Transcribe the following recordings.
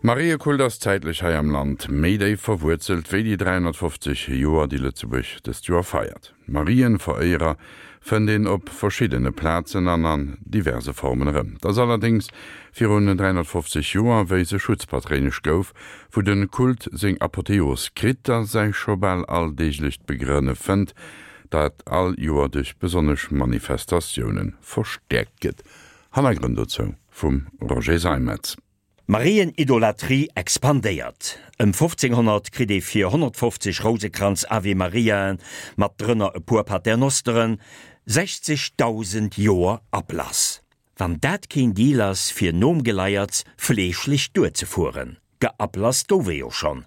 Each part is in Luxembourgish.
Mariekult ass zäitlech hei am Land méi déif verwuerzelt wéi déi 350 Joer, déi Lëtzebuerg dëst Joer feiert. Marienveréierer fënnt een op verschiddene Plazen an an diverse Formen erëm. Et ass allerdéngs virun 350 Joer, wéi se Schutzpatréinesch gouf, wou de Kult seng Apotheos kritt a säi scho bal alldeeglecht Begrënne fënnt, dat all Joer duerch besonnesch Manifestatioune verstäerkt gëtt. Hannergrënn dozou vum Roger Seimetz. D'Marienidolatrie expandéiert. Ëm 1500 kritt ee fir 150 Rousekranz Ave Mariaen, mat drënner e puer Paternosteren, 60.000 Joer Ablass. Wann dat keen Deal ass fir nom Geleierts fleeschlech duerzefueren. Geablasst gouf ee jo schonn.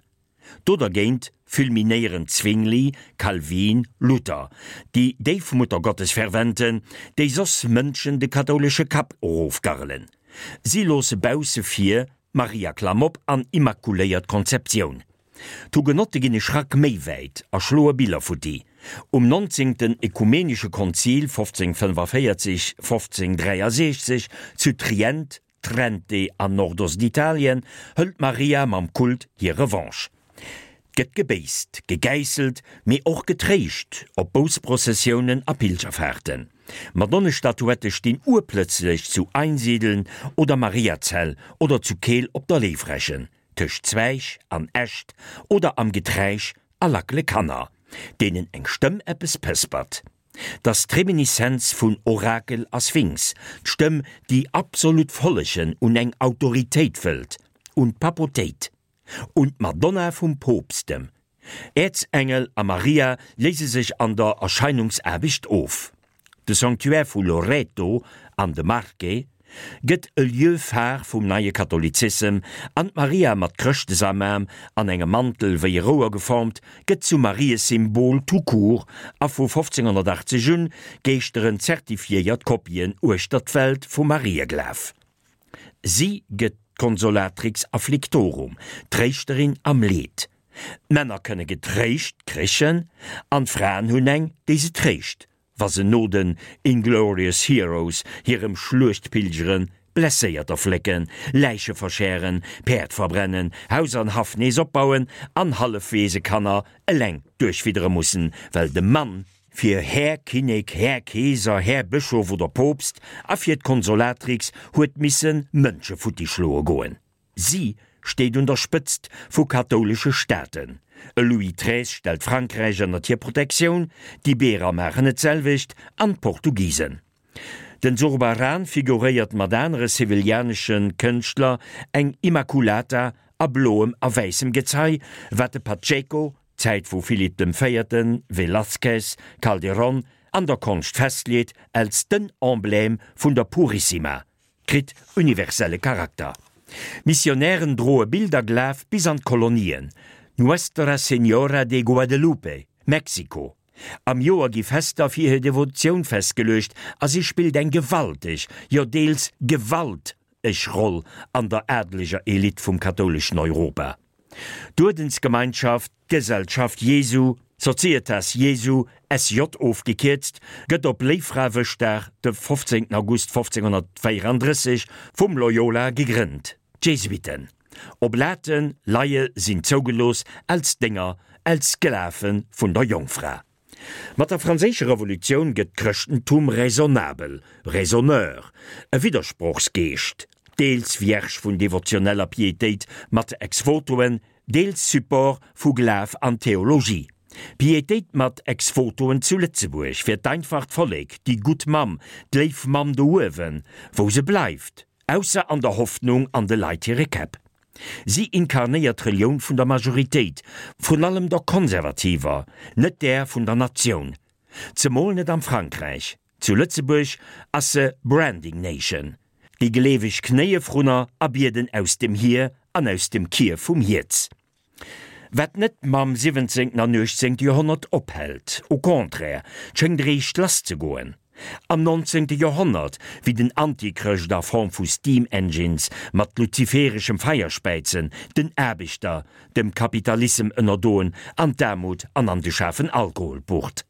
Do dergéint fulminéieren Zwingli, Calvin, Luther, déi Déifmuttergottesferventen, déi soss Mënschen de kathoulesche Kapp erofgarrelen. Si loosse bausse vir Maria-Klamopp an Immakuléiert Konzeptioun. D'Hugenotte ginn e Schrack méi wäit a schloe Biller futti. Um nonzéngten Ökumenesche Konzil 1545, 1563 zu Trient Trente an Nordostitalien hëlt d'Maria mam Kult hir Revanche. 't gëtt gebéisst, gegäisselt, mee och getréischt op Boussprozessiounen a Pilgerfahrten. Madonnestatuette stinn urplëtzlech zu Einsiedeln oder Mariazell oder zu Keel op der Léiwrechen, tëscht Zweig an Äscht oder am Geträisch a lackele Kanner, deenen eng Stëmm eppes pëspert. 't ass d'Reminiszenz vun Orakel a Sphinx, d'Stëmm, déi absolut follegen un eng Autoritéit wëllt, un d'Papotéit, un d'Madonna vum Poopstem. Äerzengel a Maria léise sech an der Erscheinungsaarbecht of. De Sanctuaire vu Loreto an de Marche gëtt e Lieu phare vum neie Katholizissem an d'Maria mat Chrëschtesamaam an engem Mantel wéi e Rouer geformt, gëtt zum Mariesymbol tout court a vu 1580 un geeschteren zertifiéiert Kopien uechter d'Welt vum Marieglaf. Si gëtt d'Consolatrix afflictorum, d'Tréischterin am Leed. D'Männer kënne getréischt kréchen an d'Fraen hunn eng, déi se tréischt, wa se no den Inglorious Heroes hirem Schluechtpilgeren Blesséierter flécken, Läiche verschären, Päerd verbrennen, Haus an Haff nees opbauen an Hallefweesekanner eleng duerchfiddere mussen, well de Mann fir Här Kinnek, Här Keeser, Här Bëschof oder Poopst a fir d'Consolatrix huet misse Mënsche futti schloe goen. Si steet un der Spëtzt vu kathoulesche Staaten. E Louis xiii stellt Frankräich ënnert hir Protektioun, d'Iberer maachen et d'selwecht an d'Portugisen. Den Zurbarán figuréiert mat anere sevillianesche Kënschtler eng Immaculata a bloem a wäissem Gezei, wat de Pacheco, Zäit vu Philipp dem Véierten, Velázquez, Calderón, an der Konscht festleet als den Emblème vun der Purissima. Kritt universelle Charakter. Missionären droe Bilderglaf bis an d'Kolonien, Nuestra Señora de Guadelupe, Mexiko. Am Joer gi Fester fir hir Devotioun festgeluecht a si spillt eng gewalteg, jo deels gewalt eg Roll an der adeleger Elite vum kathouleschen Europa. D'Uerdensgemeinschaft D'Gesellschaft Jesu, Societas Jesu, SJ ofgekierzt, gëtt op Léiffrawëschdag, de 15 August 1534, vum Loyola gegrënnt. D'Jesuiten, Oblaten, Laie sinn zougelooss als Dénger, als Sklave vun der Jongfra. Mat der Franséischer Revolutioun gëtt d'Chrëschtentum raisonnabel, raisonneur, e Widdersprochsgeescht, deels Vierge vun devotioneller Pietéit mat Ex-Votoen, deels Support vu Glaf an Theologie. Pietéit mat Ex-Votoen zu Lëtzebuerg fir d'einfacht Vollek, déi gutt Mamm, d'léif Mamm do uewen, wou se bleift. Ausser an der Hoffnung an de Leit hire Käpp. Si inkarnéiert d'Relioun vun der Majoritéit, vrun allem der konservativer, net där vun der Natioun. Zemol net am Frankräich. Zu Lëtzebuerg ass se Branding Nation. Déi Gleeweg knéie vrunner a bieden aus dem Hier an aus dem Kier vum Hierz. Wat net mam siwwenzéngten an uechtzéngte Joerhonnert ophält, au contraire, 't schéngt eréischt lass ze goen. Am nonzéngte Joerhonnert, wéi den Antichrëscht a Form vu Steam Engines mat luzifereschem Feierspäizen den Aarbechter dem Kapitalissem ënnerdoen an d'Aarmut an an de schaarfen Alkohol bucht.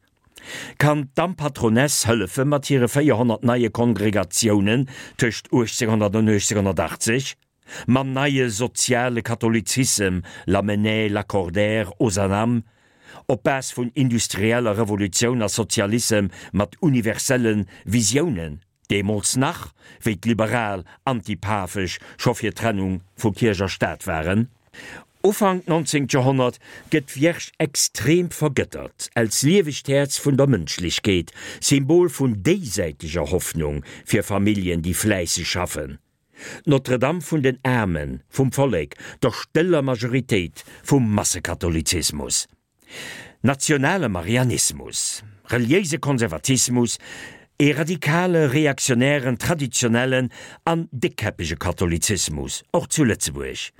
Kann d'Dampatroness hëllefe mat hire 400 neie Kongregatiounen tëscht 1800 an 1880? Mam neie soziale Katholizissem, Lamennais, Lacordaire, Ozanam, op Base vun industrieller Revolutioun a Sozialissem mat universelle Visiounen, deemools nach, wéi d'Liberal antipafesch scho fir d'Trennung vu Kierch a Staat waren. Ufank 19. Joerhonnert gëtt d'Vierge extrem vergëttert, als liewegt Häerz vun der Mënschlechkeet, Symbol vun déisäiteger Hoffnung fir Familljen, déi fläisseg schaffen. D'Notre-Dame vun den Aarmen, vum Vollek, der stëller Majoritéit vum Massekatholizismus. Nationale Marianismus, reliéise Konservatismus, ee radikale, reaktionären, traditionellen an déckkäppege Katholizismus, och zu Lëtzebuerg.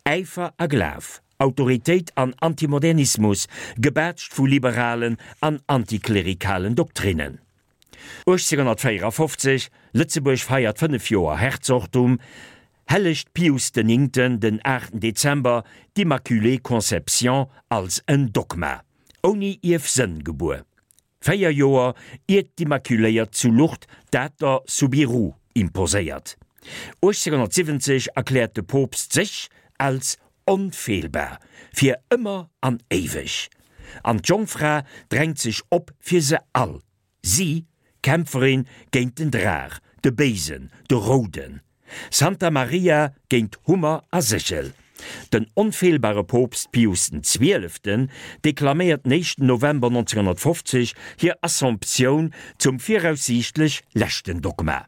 Äifer a Glaf, Autoritéit an Antimodernismus, gebaatscht vu liberalen an antiklerikalen Doktrinnen. 1854, Lëtzebuerg feiert 5 Joer Herzogtum, hellegt Pius den Néngten den 8 Dezember d'Immaculée Conception als en Dogma, ouni Ierfsënn gebuer, 4 Joer iert d'Immaculéiert zu Lourdes dat der Soubirous imposéiert. 1870 erkläert de Poopst sech als onfeelbar fir ëmmer an éiweg, an d'Jongfra drängt sech op fir se all, si, Kämpferin géint den Draach, de Béisen, de Rouden, Santa Maria géint Hummer a Séchel. Den onfeelbare Poopst Pius den Zwieleften deklaméiert den éischten November 1950 hir Assomptioun zum viraussiichtlech leschten Dogma.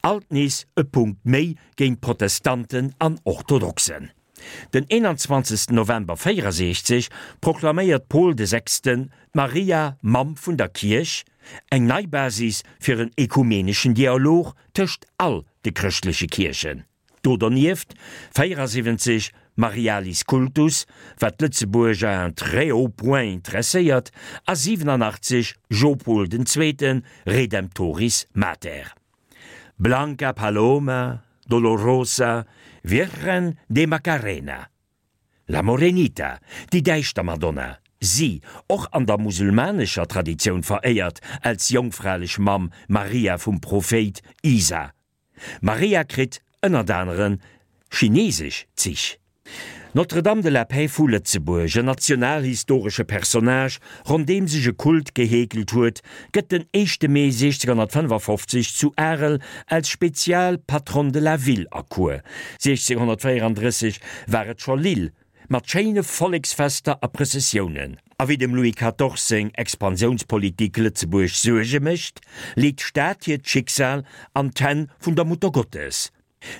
Alt nees e Punkt méi géint Protestanten an Orthodoxen. Den 21 November 64 proklaméiert Paul de Sechsten d'Maria Mamm vun der Kierch, eng nei Basis fir en ekumeneschen Dialog tëscht all de chrëschtleche Kierchen. Do dernieft 74 Marialis Cultus, wat d'Lëtzebuerg à un très haut point interesséiert, a 87 Jopol den Zweeten, Redemptoris Mater. Blanca Paloma, Dolorosa, Virgen de Macarena. La Morenita, déi däischter Madonna, si, och an der musulmanescher Traditioun veréiert als jongfralech Mamm Maria vum Prophéit Isa. Maria kritt ënnert anere chinesesch Zich. D'Notre-Dame de la Paix vu Lëtzebuerg, en nationalhistoresche Personnage, rondeem sech e Kult geheekelt huet, gëtt den éischte Mee 1655 zu Arel als spezial Patronne de la ville erkuer. 1634 war et scho Lille, Mat schéine Volleksfester a Prëssessiounen. A wéi dem Louis Quatorze seng Expansiounspolitik Lëtzebuerg Suerge mécht, leet d'Stad hiert Schicksal an d'Hänn vun der Muttergottes.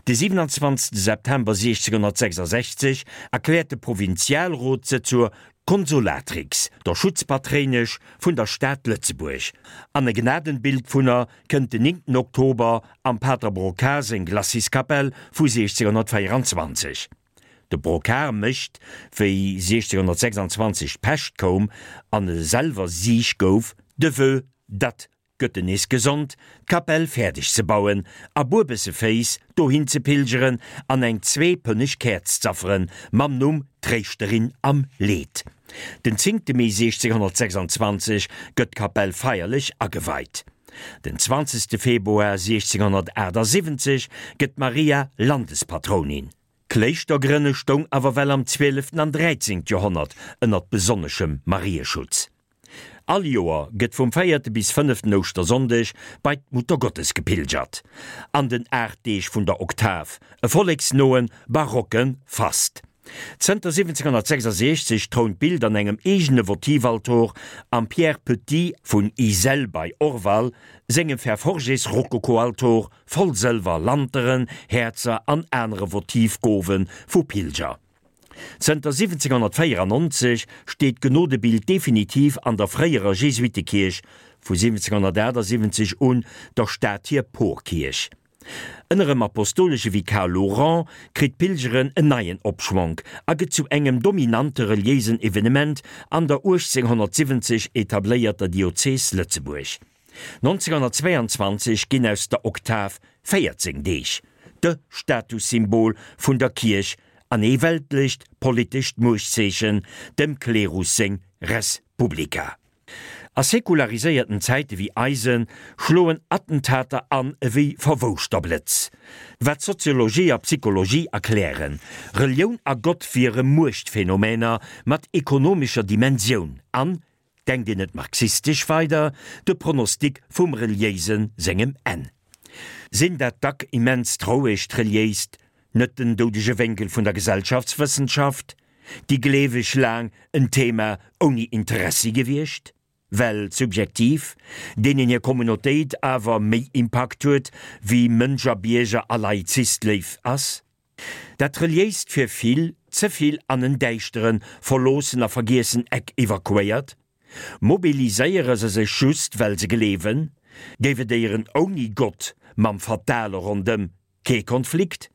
De 27 September 1666 erkläert de Provinzialrot se zur Consolatrix, der Schutzpatréinesch vun der Stad Lëtzebuerg, an e Gnadenbild vun er kënnt den 9 Oktober am Pater Brocard seng Glaciskapell vu 1624. De Brocard mécht, wéi 1626 d'Pescht koum an e selwer siich gouf, de Vœu, datt, gëtt en nees gesond, d'Kapell fäerdeg ze bauen a buebesseféiss dohin ze pilgeren an eng zweepënneg Käerz z'afferen, mam Numm Tréischterin am Leed. Den zéngte Mee 1626 gëtt d'Kapell feierlech ageweit. Den 20 Februar 1678 gëtt d'Maria Landespatrounin. D'Kléischtergrënne stoung awer well am 12 an 13 Joerhonnert ënnert besonneschem Marieschutz. All Joer gëtt vum véierte bis fënneften Ouschtersonndeg bei d'Muttergottes gepilgert. An den 8 Deeg vun der Oktav, e volleksnoen, barocke Fast. Zënter 1766 trount d'Bild an engem eegene Votivaltor am Pierre Petit vun Iselle bei Orval sengem Fer-Forgés-Rokokoaltor voll Sëlwer, Lanteren, Häerzer an anere Votivgowe vu Pilger. Zënter 1794 steet d'Genodebild definitiv an der fréierer Jesuittekierch, vu 1778 un der Stad hir Porkierch. Ënner em apostolesche Vikar Laurent kritt d'Pilgeren en neien Opschwonk a gëtt zu engem dominante reliéisen Evenement an der 1870 etabléierter Diözes Lëtzebuerg. 1922 ginn aus der Oktav 14 Deeg, de Statussymbol vun der Kierch an ee weltlecht politescht Muechtzeechen, dem Klerus seng Res Publica. A sekulariséierten Zäite wéi eisen schloen Attentater an ewéi verwouschter Blëtz. Wat Soziologie a Psychologie erklären, Relioun a Gott wiere Muechtphänomener mat ekonomescher Dimensioun an, denkt een et marxistesch weider, de Pronostic vum Reliéisen sengem Enn. Sinn dat dack immens rouegt Reliéist net den doudege Wénkel vun der Gesellschaftswëssenschaft? Déi Gleeweg laang en Thema ouni Interessi gewiescht? Well subjektiv, deenen hir Communautéit awer méi Impakt huet wéi Mënsch a Bierger a Laizist léif ass? Dat Reliéist fir vill ze vill an en däischteren, verloossen a vergiessen Eck evakuéiert? Mobiliséiere se sech just well se gleewen? Géif et éieren ouni Gott mam Fatale rondëm Kee Konflikt?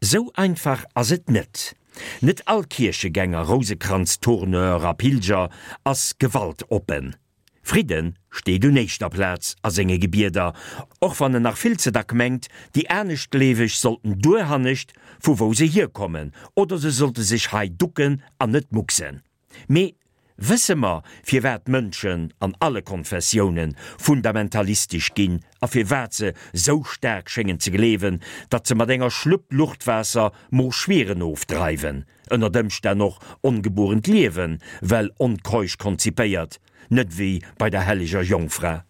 Sou einfach ass et net. Net all Kierchegänger, Rousekranztourneur a Pilger ass gewaltoppen. Fridden steet un éischter Plaz a senge Gebieder, och wann en nach vill ze dack mengt, déi Aneschtgleeweg sollten duerhannescht, vu wou se hierkommen, oder se sollte sech hei ducken an net mucksen. Mee wësse mer, firwat d'Mënschen an alle Konfessiounen fundamentalistesch ginn a firwat se sou staark schéngen ze gleewen, datt se mat enger Schlupp Luchtwaasser Moorschwieren ofdreiwen, ënnert Ëmstänn och ongebuerent Liewen, well onkeusch konzipéiert, net wéi bei der helleger Jongfra?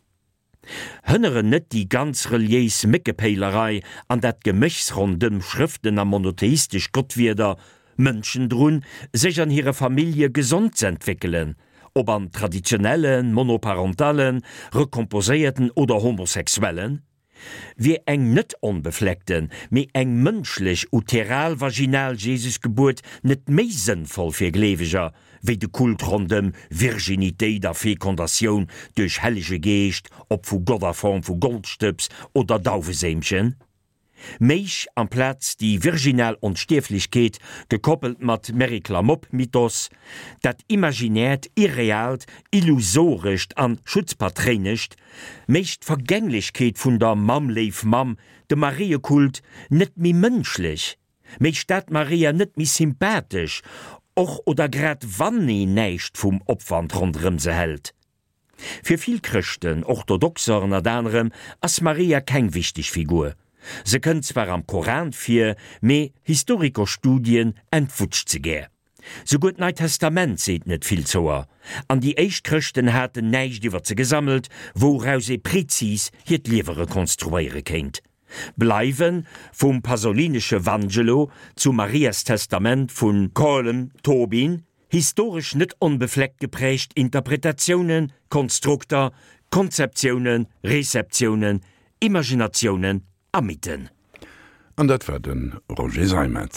Hënneren net déi ganz reliéis Méckepéilerei an dat Geméchs rondëm Schrëften a monotheistesch Gottwierder Mënschen drun, sech an hire Famillje gesond z'entwéckelen, ob an traditionellen, monoparentalen, recomposéierten oder homosexuellen? Wier eng net onbefleckten, mee eng mënschlech uteral-vaginal Jesusgebuert net méi sënnvoll fir Gleeweger, wéi de Kult rondëm Virginitéit a Fekondatioun duerch Hellege Geescht, ob vu Gott a Form vu Goldstëbs oder Dauweséimchen? Méich amplaz déi virginal Onstierflechkeet, gekoppelt mat Meriklamopp-Mythos, dat imaginäert, irreaalt, illusorescht an schutzpatréinescht, méich d'Vergänglechkeet vun der Mamm Léif Mamm, dem Mariekult, net méi mënschlech, méich dat Maria net méi sympathesch, och oder grad wann een näischt vum Opwand ronderëm se hält. Fir vill Chrëschten, Orthodoxer ënnert anerem, ass Maria keng wichteg Figur. Se kënnt zwar am Koran vir, mee Historikerstudien entwutscht se gär. Souguer d'Neit Testament seet net vill zouer, an déi éischt Chrëschten haten näischt iwwer se gesammelt, wouraus ee prezis hiert Liewe rekonstruéiere kéint. Bleiwe vum pasolinesche Vangelo zum Marias Testament vu Colm Tóibín historesch net onbefleckt geprägt Interpretatiounen, Konstrukter, Konzeptiounen, Rezeptiounen, Imaginatiounen a Mythen. An dat war de Roger Seimetz.